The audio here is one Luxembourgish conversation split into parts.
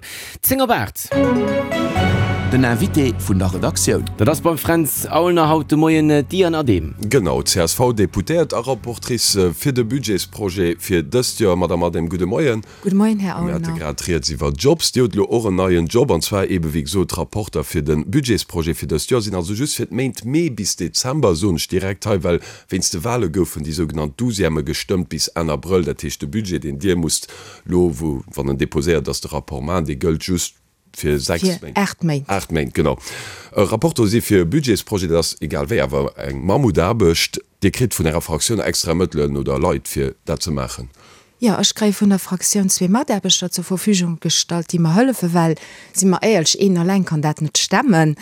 10 op 8. Den Invité vun der Redaktioun. Dat ass beim Fränz Aulner haut de Moien d'Diane Adehm. Genau, d'CSV-Deputéiert a Rapportrice fir de Budgetsprojet fir dëst Joer. Madame Adehm, gudde Moien. Gudde Moien, Här Mir hate Aulner. grad rieds iwwer Jobs. Dir hutt elo och en neien Job, an zwar eebe wéi gesot Rapporter fir de Budgetsprojet fir dëst Joer. Sinn also just fir d'Méint Mee bis Dezember, soen ech direkt hei, well wéinst de Wale goufen déi sougenannt Douzièmë gestëmmt bis Enn Abrëll. Dat heescht, de Budget, deen Dir musst Lo, wou, wann en déposéiert ass, de Rapport maachen, dee gëllt just fir 6 Fir Méint. 8 Méint. 8 Méint, genau. E Rapporteur si fir e Budgetsprojet, dat ass egal wéi awer eng Mammutaarbecht. Dir kritt vun Ärer Fraktioun extra Mëttelen oder Leit, fir dat ze maachen? Jo, ech kréie vun der Fraktioun zwee Mataarbechter zur Verfügung gestallt, déi mer hëllefen, well, si mer éierlech, een eleng kann dat net stemmen.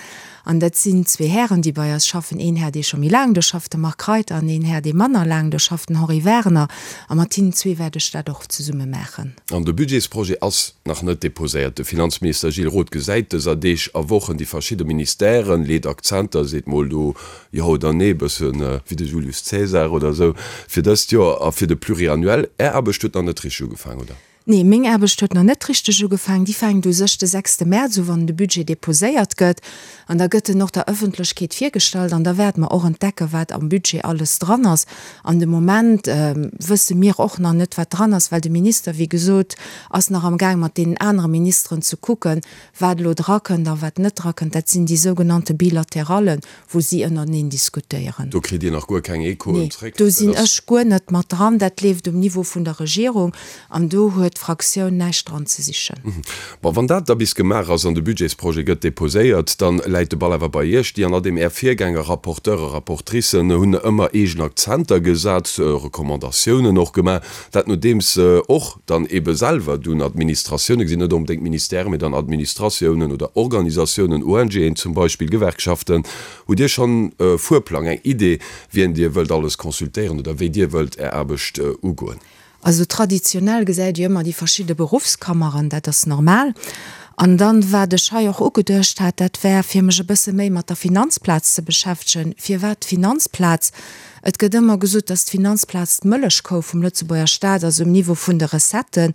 An dat sinn zwee Hären, déi bei eis schaffen, een Här, dee scho méi laang do schafft, de Marc Reiter, an een Här, dee manner laang do schafft, den Henri Werner. A mat hinnen zwee wäert ech dat och zesumme maachen. An de Budgetsprojet ass nach net deposéiert. De Finanzminister Gilles Roth gesäit dëser Deeg a Wochen déi verschidde Ministèren, leet Akzenter, seet mol do jo oder nee, bësse wéi de Julius Caesar oder esou, fir dëst Joer a fir de Pluriannuel. Är Aarbecht huet nach net richteg ugefaangen, oder? Nee, meng Aarbecht huet nach net richteg ugefaangen. Déi fänkt u sech de sechste Mäerz u, wann de Budget deposéiert gëtt. An da gëtt en och der Ëffentlechkeet virgestallt. An da wäerte mer och entdecken, wat am Budget alles dran ass. An de Moment wësse mir och nach net, wat dran ass, well de Minister, wéi gesot, ass nach am Gaang mat deenen anere Ministeren ze kucken, wat elo drakënnt a wat net drakënnt. Dat sinn déi sougenannte Bilaterallen, wou si ënnerteneen diskutéieren. Do kritt Dir nach guer keng Echoen Nee, zréck? do sinn ech guer net mat dran. Dat leeft um Niveau vun der Regierung an do huet d'Fraktioun näischt dran ze sichen. Bon, wann dat da bis gemaach ass an de Budgetsprojet gëtt deposéiert, dann läit de Ball awer bei Iech. Déi an adem Är Virgänger, Rapporteure, Rapportricen, hunn ëmmer eegen Akzenter gesat, Recommandatiounen och gemaach, dat nodeems se och dann eebe selwer dunn Administratioune gesinn, net onbedéngt Ministèren, mee dann Administratiounen oder Organisatiounen, ONGen zum Beispill, Gewerkschaften. Hutt Dir schonn e Fuerplang, eng Idee, wien Dir wëllt alles consultéieren oder wéi Dir wëllt Är Aarbecht ugoen? Also traditionell gesäit Dir ëmmer déi verschidde Beruffskammeren, dat ass normal. An dann, wat ech hei och ugeduecht hat, dat wär, fir mech e bësse méi mat der Finanzplaz ze beschäftegen. Firwat d'Finanzplaz? Et gëtt ëmmer gesot, dass d'Finanzplaz d'Mëllechkou vum Lëtzebuerger Staat ass um Niveau vun de Recetten.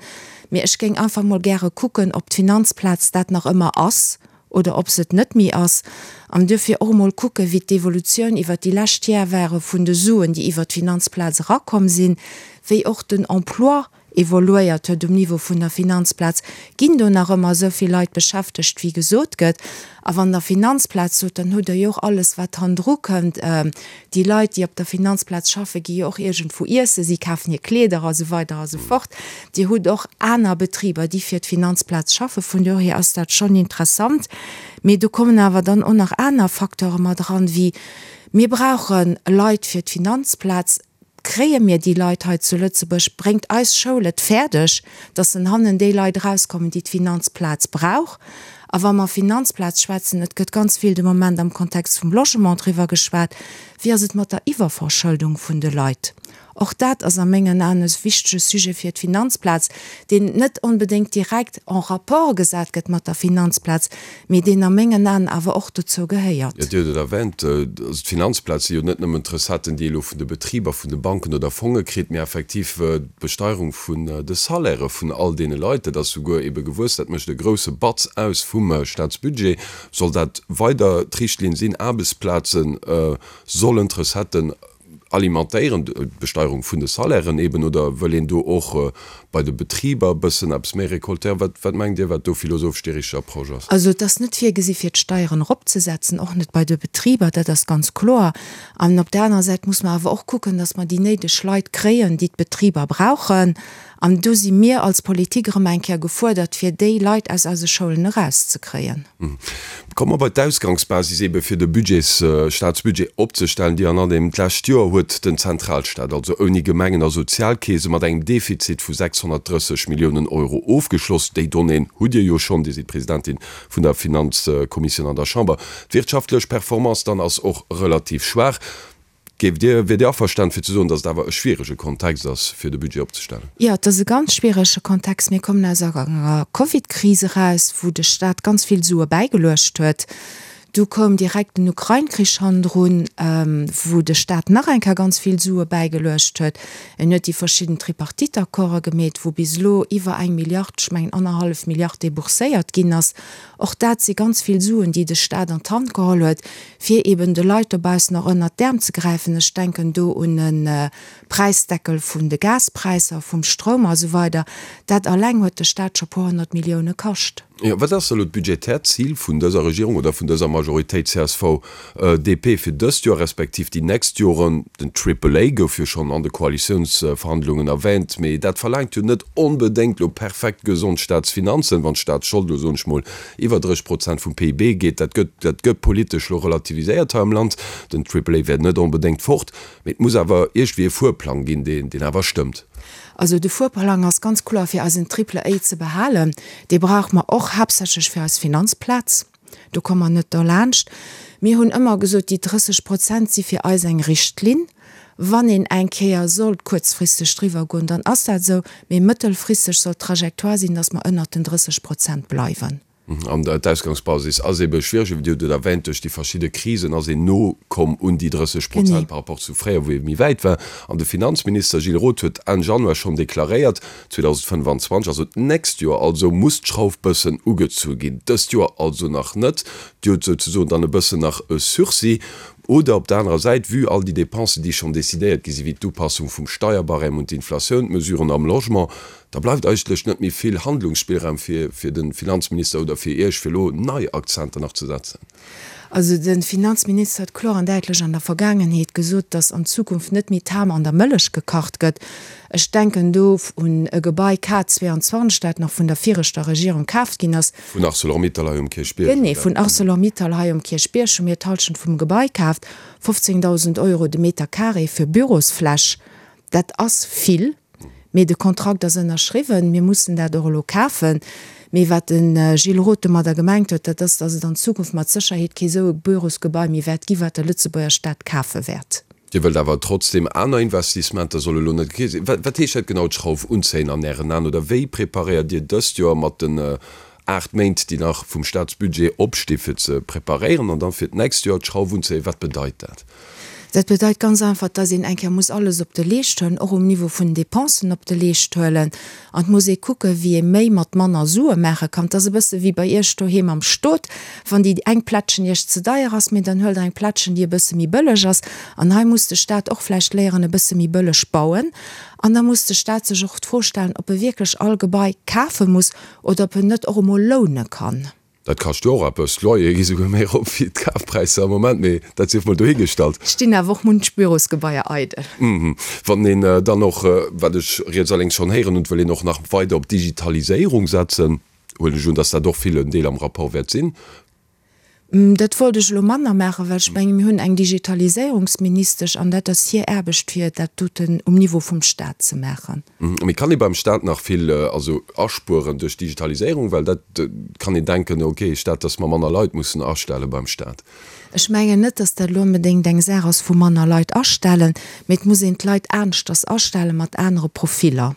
Mee ech géing einfach mol gäre kucken, ob d'Finanzplaz dat nach ëmmer ass oder ob se et net méi ass. An duerfir och emol kucken, wéi d'Evolutioun iwwert déi lescht Jar ware vun de Suen, déi iwwert d'Finanzplaz erakomm sinn, wéi och den Emploi evoluéiert huet um Niveau vun der Finanzplaz, ginn do nach ëmmer esou vill Leit beschäftegt wéi gesot gëtt? A wann Der Finanzplaz sot, dann hutt Der jo och alles wat hannendru kënnt. Déi Leit déi op der Finanzplaz schaffen, gi jo och iergendwou iessen, si kafen hir Kleeder a sou weider a sou fort. Dir hutt och aner Betriber déi fir d'Finanzplaz schaffen, vun dohier ass dat schonn interessant. Mee do kommen awer dann och nach aner Facteure mat eran, wéi mir brauche Leit fir d'Finanzplaz, Kréie mir déi Leit hei zu Lëtzebuerg? Bréngt eis Schoul et fäerdeg, datt en hannen déi Leit erauskommen, déi d'Finanzplaz brauch? A wa mer Finanzplaz schwätzen, et gëtt ganz vill de Moment am Kontext vum Logement driwwer geschwat, wéi ass et mat der Iwwerverschëldung vun de Leit? Och dat ass a mengen Aen e wichtege Sujet fir d'Finanzplaz, deen net onbedéngt direkt en rapport gesat gëtt mat der Finanzplaz, mee deen a mengen Aen awer och dozou gehéiert. Jo, Dir hutt et erwänt, also d'Finanzplaz si jo net nëmmen d'Recetten, déi ee elo vun de Betriber, vun de Banken oder Fonge kritt, mee effektiv d'Besteierung vun de Salairë vun all deene Leit. Dat ass souguer ebe gewuess, dat mécht e grouse Batz aus vum Staatsbudget. Soll dat weider d'Richtlinn sinn? Aarbechtsplaze sollen d'Recetten Alimentéieren, d'Besteierung vun de Salairen eben, oder wëll een do och bei de Betriber e bëssen eppes méi récoltéieren? Wat, wat mengt Dir, wat do philosophesch déi richteg Approche ass? Also et ass net virgesi fir d'Steieren eropzesetzen, och net bei de Betriber, dat ass ganz kloer. An op där anerer Säit muss mer awer och kucken, datt mer déi néideg Leit kréien, déi d'Betriber brauchen. An do si mir als Politik erëm eng Kéier gefuerdert, fir déi Leit aus eise Schoulen erauszekréien. Komme mer bei d'Ausgangsbasis ebe fir de Budgets, Staatsbudget opzestellen, déi an andeem d'lescht Joer huet den Zentralstaat, also ouni Gemengen a Sozialkeese, mat engem Defizit vu 630 Milliounen Euro ofgeschloss. Déi Donnéeën hutt Dir jo schonn, Dir sidd Presidentin vun der Finanzkommissioun an der Chamber. D'wirtschaftlech Performance dann ass och relativ schwaach. Géift Dir, wiert Dir averstan fir ze soen, datt et awer e schwierege Kontext ass, fir de Budget opzestellen? Jo, et ass e ganz schwierege Kontext. Mir kommen aus enger Covid-Kris eraus, wou de Staat ganz vill Sue bäigeluecht huet. Du koum direkt den Ukrain-Krich hannendrun, wou de Staat nach eng Kéier ganz vill Sue bäigeluecht huet. En huet déi verschidden Tripartite-Accorde gemeet, wou bis elo iwwer eng Milliard, ech mengen annerhallef Milliard débourséiert ginn ass. Och dat si ganz vill Suen, déi de Staat an d'Hand geholl huet, fir eben de Leit dobaussen och ënnert d'Äerm ze gräifen. Ech denken do un e Präisdeckel vun de Gaspräisser, vum Stroum a sou weider. Dat alleng huet de Staat scho puer 100 Millioune kascht. Jo, wat ass elo d'budgetäert Zil vun dëser Regierung oder vun dëser Majoritéit csv, DP fir dëst Joer respektiv déi nächst Joren? Den Triple A gouf jo schonn an de Koalitiounsverhandlungen erwähnt, mee dat verlaangt jo net onbedéngt elo perfekt gesond Staatsfinanzen, wann d'Staatsschold elo, soen ech mol, iwwer 30 Prozent vum PIB geet. Dat gëtt, dat gëtt politesch elo relativiséiert hei am Land. Den Triple A wär net onbedéngt fort, mee et muss awer iergendwéi e Fuerplang ginn, deen, deen awer stëmmt. Also de Fuerplang ass ganz kloer fir eisen Triple A ze behalen. Dee brauche mer och haaptsächlech fir eis Finanzplaz. Do komme mer net derlaanscht. Mir hunn ëmmer gesot, déi 30 Prozent si fir eis eng Richtlinn. Wann een eng Kéier sollt kuerzfristeg driwwer goen, dann ass dat esou. Mee mëttelfristeg soll d'Trajectoire sinn, datt mer ënnert den 30 Prozent bleiwen. An d'Ausgangsbasis ass ebe schwiereg, Dir hutt et erwähnt, duerch déi verschidde Krisen ass een no komm un déi 30 Prozent par rapport zu fréier, wou ee méi wäit war. An de Finanzminister Gilles Roth huet Enn Januar schonn deklaréiert, 2025, also d'nächst Joer also, muss d'Schrauf bëssen ugezu ginn. Dëst Joer also nach net. Dir hutt souzesoen dann e bëssen nach e Sursis. Oder op der anerer Säit, vue all déi Dépensen, déi schonn decidéiert gi sinn, wéi d'Upassung vum Steierbarème un d'Inflatioun, d'Mesuren am Logement, Da bleift eigentlech net méi vill Handlungsspillraum fir fir de Finanzminister oder fir Iech, fir elo nei Akzenter nach ze setzen. Also de Finanzminister huet kloer an däitlech an der Vergaangenheet gesot, datt an Zukunft net méi d'Ham an der Mëllech gekacht gëtt. Ech denken do un e Gebai K 22, dat nach vun der viregter Regierung kaaft ginn ass. Vun Arcelor-Mittal hei um Kierchbierg, Genee, vun Arcelor-Mittal hei um Kierchbierg hu mir d'Halschent vum Gebai kaaft. 15.000 Euro de Meter carré fir Bürosfläch, dat ass vill. Mee de Kontrakt ass ënnerschriwwen, mir mussen dat och elo kafen. Mee wat de Gilles Roth domadder gemengt huet, dat ass, datt et an Zukunft mat Sécherheet kee sou e Bürosgebai méi wäert gi wat de Lëtzebuerger Staat kafe wäert. Dir wëllt awer trotzdem aner Investissementer, soll elo net gi sinn. Wat heescht dat genau, d'Schrauf unzéien an Ären Aen? Oder wéi preparéiert Dir dëst Joer mat den 8 Méint, déi nach vum Staatsbudget opsti fir ze preparéieren an dann fir d'nächst Joer d'Schrauf unzéien? Wat bedeit dat? Dat bedeit ganz einfach, dass een eng Kéier muss alles op de Leescht huelen, och um Niveau vun den Dépensen op de Leescht huelen. An et muss ee kucken, wéi ee méi mat manner Sue maache kann. Et ass e bësse wéi bei Iech doheem am Stot, wann déi eng Plättchen Iech ze deier ass, mee dann huelt Der eng Plättchen, déi e bësse méi bëlleg ass. An hei muss de Stat och vläicht léieren, e bësse méi bëlleg bauen. An da muss de Stat sech och d'Fro stellen, ob e wierklech all Gebai kafe muss oder ob en net och emol loune kann. Dat kascht jo och eppes. D'Loyere gi souguer méi erop wéi d'Kafpräisser am Moment, mee dat sief mol dohigestallt. Stinn awer och munch Bürosgebaier eidel. Wann een dann och, wat ech riets a lénks schonn héieren hunn, wëll een och nach weider op d'Digitaliséierung setzen, huelen ech un, dass dat och vill en Deel am Rapport wäert sinn. Dat wollt ech elo manner maachen, well ech mengen, mir hunn eng Digitaliséierungsministesch an dat ass hir Aarbecht, fir dat doten um Niveau vum Stat ze maachen. Mee kann ee beim Stat nach vill also aspueren duerch d'Digitaliséierung? Well dat kann een denken, okay, Stat, dass mer manner Leit mussen astelle beim Stat. Ech mengen net, dass dat elo onbedéngt eng Saach ass vu manner Leit astellen, mee et muss een d'Leit aneschters astelle mat anere Profiller.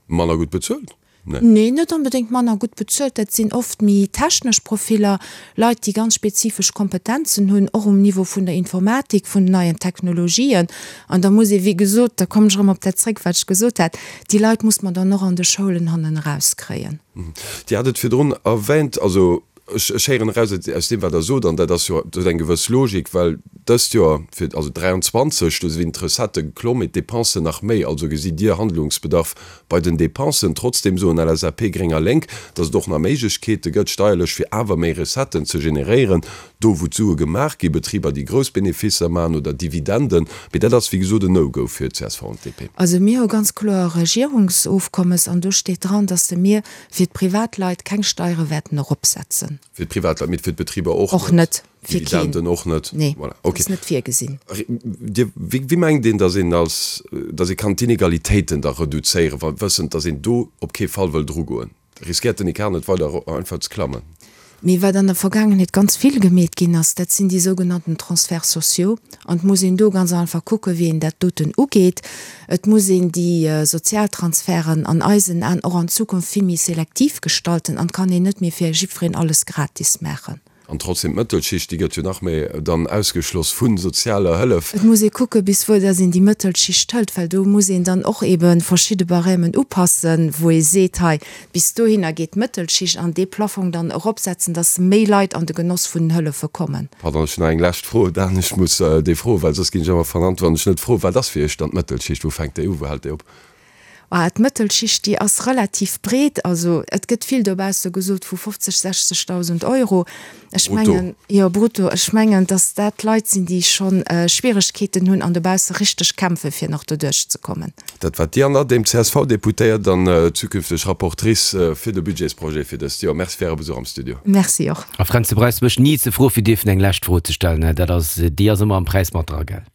Manner gutt bezuelt? Nee. Nee, net onbedéngt manner gutt bezuelt. Dat sinn oft méi technesch Profiller, Leit, déi ganz spezifesch Kompetenzen hunn, och um Niveau vun der Informatik, vun den neien Technologien. An da muss ee, wéi gesot, da kommen ech erëm op dat zréck, wat ech gesot hat, déi Leit muss mer dann och an de Schoulen hannen erauskréien. Dir hat et virdrun erwähnt, also Ech héieren eraus aus deem, wat Der sot, an dat ass jo, dat huet eng gewëss Logik, well dëst Joer, fir, also 23, do sinn d'Recettë geklomm, mee d'Depensen nach méi. Also gesitt Dir Handlungsbedarf bei den Depensen. Trotzdem soen LSAP, Gréng a Lénk, datt et och nach Méiglechkeete gëtt, steierlech, fir awer méi Recetten ze generéieren, do wou d'Sue gemaach ginn, Betriber, déi grouss Beneficer maachen oder Dividenden. Mee dat ass, wéi gesot, en No-Go fir csv an d'DP. Also mir hu ganz kloer e Regierungsofkommes an do steet dran, datt se mir Fir d'Privatleit keng Steiere wäerten eropsetzen. Fir d'Privatleit, mee fir d'Betriber och net? Och net. Fir keen. Dividenden och net? Nee, voilà. Okay. Ass net virgesinn. Dir, wéi, wéi mengt een, datt een als, datt ee kann d'Inegalitéiten da reduzéieren, wa wëssend, datt een do op kee Fall wëll drugoen? Riskéiert den Ecart net weider einfach ze klammen? Mee wat an der Vergaangenheet ganz vill gemeet ginn ass, dat sinn déi sougenannten Transferts sociaux. An et muss een do ganz einfach kucken, wéi een dat doten ugeet. Et muss een déi Sozialtransferten an eisen Aen och an Zukunft vill méi selektiv gestalten an et kann een net méi fir jiddwereen alles gratis maachen. An trotzdem, d'Mëttelschicht, déi gëtt jo nach méi dann ausgeschloss vu sozialer Hëllef. Et muss ee kucke bis wou dass een déi Mëttelschicht hëlt, well do muss een dann och ebe verschidde Barèmen upassen, wou ee seet, hei bis dohinner geet d'Mëttelschicht an dee Plafong dann eropsetzen, dass méi Leit an de Genoss vun den Hëllefe kommen. Pardon, ech hunn nach eng lescht Fro, Dan, ech muss déi froen, well soss ginn ech ëmmer vernannt, wann ech net froen. Wat ass fir Iech dann d'Mëttelschicht? Wou fänkt déi u, wou hält déi op? Ah, d'Mëttelschicht, déi ass relativ breet. Also et gëtt vill dobausse gesot vu 50, 60.000 Euro. Ech mengen, jo, brutto. Ech mengen, datt dat Leit sinn, déi scho Schwieregkeeten hunn an dobausse richteg kämpfen, fir nach doduerch ze kommen. Dat war d'Diane Adehm, CSV-Deputéiert an zukünfteg Rapportrice fir de Budgetsprojet fir dëst Joer. Merci fir Äre Besuch am Studio. Merci och. A Fränz, du brauchs mech ni ze froe fir dierfen eng lescht Fro ze stellen. Dat ass, déi ass ëmmer am Präis mat dra, gell?